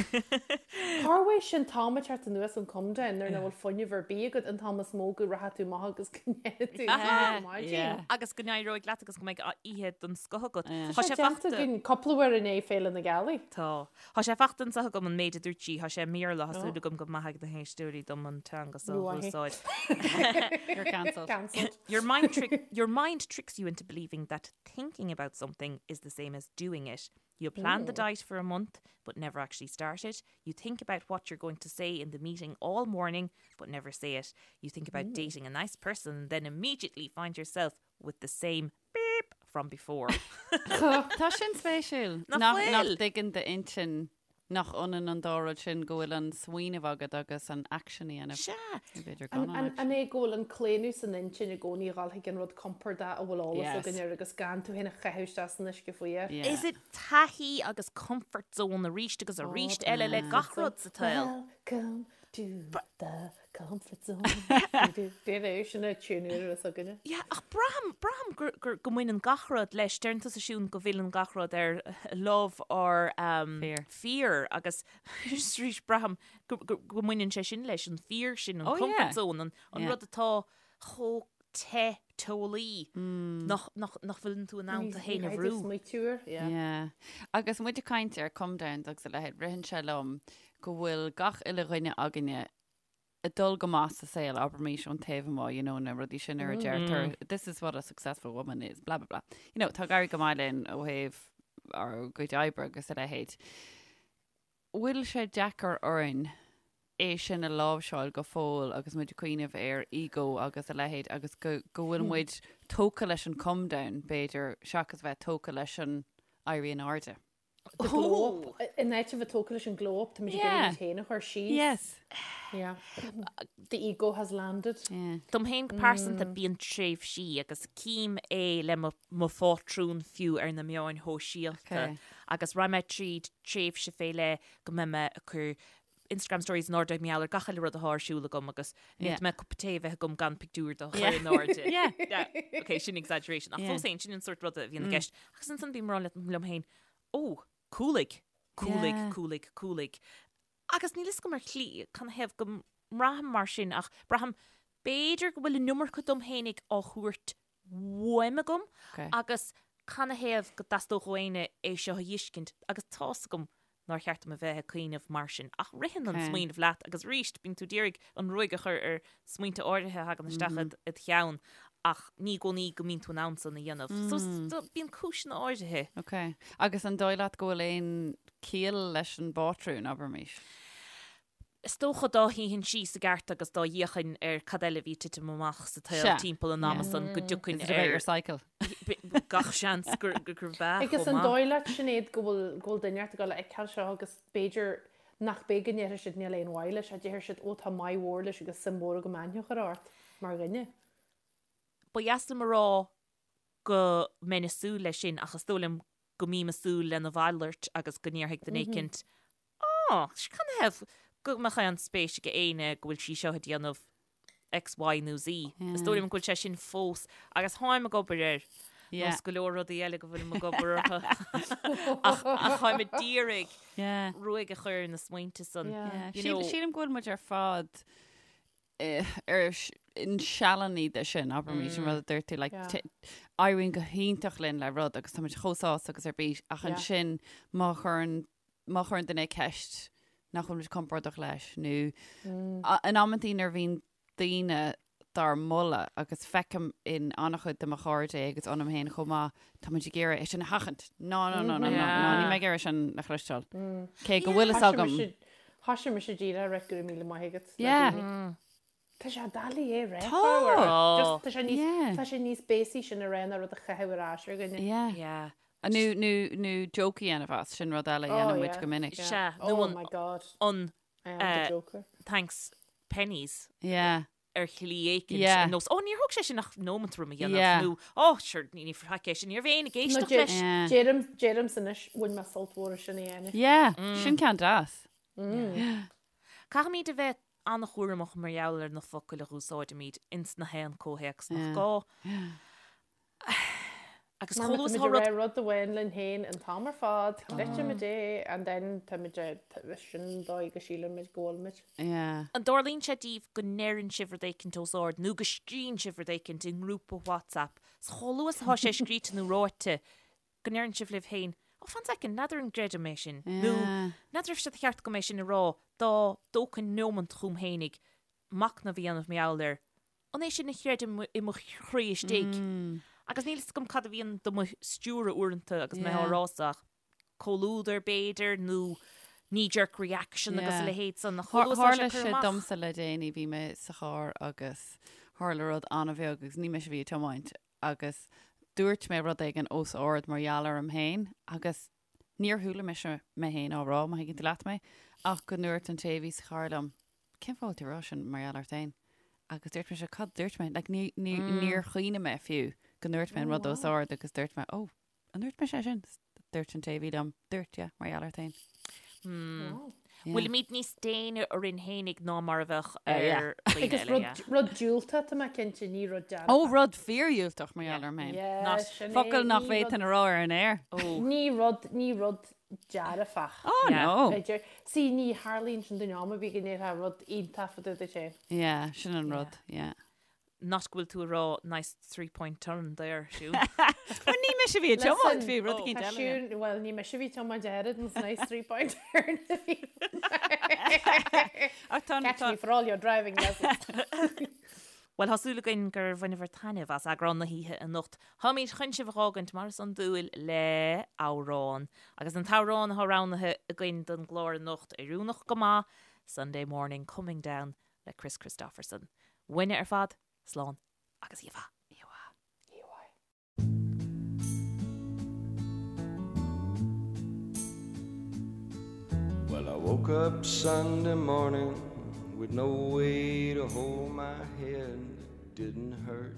Cá bhfuil sin t-am ag teacht anuas an come down nuair nach bhfuil fuinneamh ar bith agat an t-am is mó go rachaidh tú amach agus go ndéanfaidh tú ar maidin. Agus go n-éireoidh leat agus go mbeidh oíche den scoth agat. Tá sé déanta againn cúpla uair i ndiaidh Féile na Gealaí. Tá. Tá sé fachta anseo agam an méid a dúirt sí, tá sé i mBéarla, tá súil agam go maithfidh na héisteoirí dom an teanga seo a úsáid. You're cancelled. Cancelled. Your mind trick, your mind tricks you into believing that thinking about something is the same as doing it. You plan the diet for a month, but never actually start it. You think about what you're going to say in the meeting all morning, but never say it. You think about dating a nice person and then immediately find yourself with the same beep from before. Tá sin spéisiúil. Nach Nach bhfuil? nach dtuigeann d'intinn. Nach ionann an dá rud sin, go bhfuil an smaoineamh agat agus an action a dhéanamh. Sea. Nó b'fhéidir gan an action. An é go bhfuil an claonadh san intinn i gcónaí a dhul chuig an rud compordach a bhfuil eolas Yes. againn air agus gan tú féin a chaitheamh isteach san uisce fuar? Yeah. Is it taithí agus comfort zone arís agus arís eile le gach rud sa tsaol? Welcome to the comfort zone. Déan sin a tune ar is againne. Yeah, ach braithim, braithim gur, gur, go mbaineann gach rud leis. Deireann tusa Siún go bhfilleann gach rud ar love or um, Fear. fear agus arís braithim go, go, go mbaineann sé sin leis, an fear sin, an Oh, comfort yeah. zone, an, an Yeah. rud atá chomh te teolaí Mm. nach, nach, nach bhfuileann tú in ann tú féin a bhrú. Smaoitiú air. Yeah. Yeah. Agus muid ag caint ar come downs agus a leithéid, ritheann sé liom go bhfuil gach uile dhuine againne ag dul go maith sa saol, abraimis ón taobh amuigh, you know, na rudaí sin ar a deirtear, this is what a successful woman is, blah, blah, blah. You know, tá ag éirí go maith linn ó thaobh ár gcuid oibre agus a leithéid. Bhfuil sé deacair orainn é sin a láimhseáil go fóill agus muid ag cuimhneamh ar ego agus a leithéid agus go, go bhfuil muid tógtha leis an come down, b'fhéidir, seachas bheith tógtha leis an éirí in airde? The glow up. In áit a bheith tógtha leis an glow up, táimid ag iarraidh muid féin a chur síos. Yes. Yeah. The ego has landed. Yeah. Dom féin go pearsanta bíonn tréimhsí agus cím é le mo mo phátrún fiú ar na meáin shóisialta Okay. agus raghaidh mé tríd tréimhse fé leith go mbeidh mé ag cur Instagram stories in airde mar gheall ar gach uile rud atá ar siúl agam agus Yeah. ní mé cupa tae a bheith agam gan pictiúr de chur Yeah. in airde. Yeah. Yeah. Ok, sin exaggeration. Ach Yeah. fós féin, sin an sórt ruda a bhíonn i gceist. Agus ansan bím ag rá liom féin, ó, cúlaigh, cúlaigh, Yeah. cúlaigh, cúlaigh. Agus níl fhios agam ar shlí canathaobh go mbraithim mar sin ach braithim b'fhéidir go bhfuil an iomarca dom fhéinig á thabhairt uaim agam Okay. agus canathaobh go dteastódh ó éinne é seo a fheiscint agus tá's agam nár cheart dom a bheith ag cuimhneamh mar sin ach ritheann an Okay. smaoineamh leat agus arís bíonn tú d'iarraidh an ruaig a chur ar smaointe áirithe a thagann isteach id id cheann ach ní i gcónaí go mbíonn tú in ann san a dhéanamh. So so bíonn cúiseanna áirithe. Ok. Agus an dóigh leat go bhfuil aon chiall leis an bpátrún, abraimis? Is dócha dá shuífinn síos i gceart agus dá bhféachfainn ar cad eile a bhí ag titim amach sa tsaol Sea. timpeall an ama san go dtiocfainn Is it about ar your cycle? gach seans gur gurb ea Agus chomh an maith. dóigh leat, Sinéad, go bhfuil go bhfuil duine ort ag dul a fheiceáil seo agus b'fhéidir nach b'é go ndéarfaidh siad níl aon mhaith leis, ach déarfaidh siad ó tá maith mhór leis agus suim mhór agam aithne a chur ort mar dhuine. Ba dheas liom a rá go mbeinn ag súil leis sin ach is dóigh liom go mbím ag súil lena mhalairt agus go ndéarfaidh duine éicint Á, canathaobh go mbeadh aon spéis ag éinne go bhfuil sí seo ag déanamh X, Y nó Z. Is dóigh liom go bhfuil sé sin fós agus táim ag obair air. Yeah. Nós go leor rudaí eile go bhfuilim ag obair orthu. Ach ach táim ag d'iarraidh Yeah. ruaig a chur ar na smaointe san. Yeah. Yeah. You Síl- know- Sílim go bhfuil muid ar fad eh, ar sh- in sealanna de sin, abraimis an rud a dúirt tú, like, Yeah. t- éiríonn go hiontach linn le rud agus táimid chomh sásta agus ar bís ach Yeah. ansin má chuireann má chuireann duine ceist nach bhfuil muid compordach leis nó a- in amantaí nuair a bhíonn daoine dár moladh agus feicim in an-chuid de mo chairde é agus ionam féin chomh maith, tá muid ag iarraidh é sin a sheachaint. Ná, ná, ná, ná, ná, ná, níl mé ag iarraidh sin a chloisteáil. Cé go bhfuil fhios agam. Thoisigh mise díreach ag rá go raibh míle maith agat. le Yeah. daoine. Tá sé doiligh é rá. Tá. Just tá sé níos Yeah. tá sé níos béasaí sin a rá ná rud a chaitheamh ar ais ar dhuine. Yeah. Yeah. Nó, nó, nó joke a dhéanamh as, sin rud eile a Oh, dhéanann muid yeah. go minic. Yeah. Sea, nó Oh an- my god. An I am the eh, joker. thanks pennies Yeah. ar shlí éicint Yeah. ar nós, Ó, níor thóg sé sin ach nóimeant orm a dhéanamh Yeah. nó Ó, sure, ní ní faic é sin, ní raibh éinne ag No, éisteacht deir- leis. Yeah. Deirim deirimse anois bhain mé sult mhór as sin a dhéanamh. Yeah. Sin ceann deas. Caithfimid a bheith an-chúramach mar gheall ar na focail a dh'úsáidimid ins na haon comhthéacs nach Yeah. gá. Agus Mar chomh má luath is táimid atá ag rud rá rud amháin linn féin an t-am ar fad, creidimid é, and then táimid ag sin an dóigh go sílimid go bhfuilimid. Yeah. An dtarlaíonn sé daoibh go ndeireann sibh rud éicint os ard nó go scríonn sibh rud éicint i ngrúpa WhatsApp 's chomh luath is atá sé scríte nó ráite go ndeireann sibh libh féin, Ó, fan soicind, n'fheadar an gcreidim é sin nó Yeah. n'fheadar raibh sé de cheart agam é sin a rá dá dtógfainn nóimint chugam fhéinig machnamh a dhéanamh mar gheall air. An é sin a chreidim i mo chroí istigh? Agus níl fhios agam cad a bhíonn do mo stiúradh uaireanta agus mé á Yeah. rá so ach comhluadar b'fhéidir nó knee jerk reaction agus a Yeah. leithéid san. Ach chomh luath is atá Tharla sé curtha sé amach. domsa le déanaí, bhí mé sa charr agus tharla rud an-bheag agus ní mise a bhí ag tiomáint agus dúirt mé rud éigin os ard mar gheall orm féin agus Níor chuala mise mé féin á rá, má thuigeann tú leat mé, ach go ndúirt an té a bhí sa charr liom, cén fáth a bhfuil tú ag rá sin mar gheall ort féin? Agus dúirt mise, cad dúirt mé? Like, ní, ní, níor chuimhnigh mé fiú go ndúirt mé an rud os ard agus dúirt mé, oh, an ndúirt mise é sin? Dúirt an té a bhí liom, dúirt, yeah, mar gheall ort féin. Yeah. Bhfuilimid níos déine orainn fhéinig ná mar a bheadh ar dhaoine Agus eile, rud, yeah. rud diúltach, tá mé cinnte, ní rud dearfach. Ó, rud fíordhiúltach mar gheall orm féin. Yeah, Not sin é, Focal nach ní rud- bhféadfainn a rá ar an aer. Ní rud, ní rud dearfach. Oh, Yeah. no. B'fhéidir. See, ní tharlaíonn sin don am a bhí go ndéarfá rud iontach fá dtaobh duit féin. Yeah, sin an rud, yeah. Not go bhfuil tú ag rá nice three-point turn there, Siún. Bhuel, ní mise a bhí ag tiomáint, bhí rud éicint Tá eile. Siún, bhuel, ní mise a bhí ag tiomáint oiread, an nice three-point turn a bhí. Ach tá, Catch tá, me for all your driving lessons. Bhuel, tá súil againn gur bhaineabhair taitneamh as eagrán na hoíche anocht. Táimid chun sibh a dh'fhágaint mar is iondúil le amhrán. Agus an t-amhrán atá roghnaithe againn don gclár anocht, oiriúnach go maith, Sunday Morning Coming Down le Kris Kristofferson. Uainne ar fad, slán agus oíche mhaith. Oíche mhaith. Oíche mhaith. Well, I woke up Sunday morning with no way to hold my head. It didn't hurt.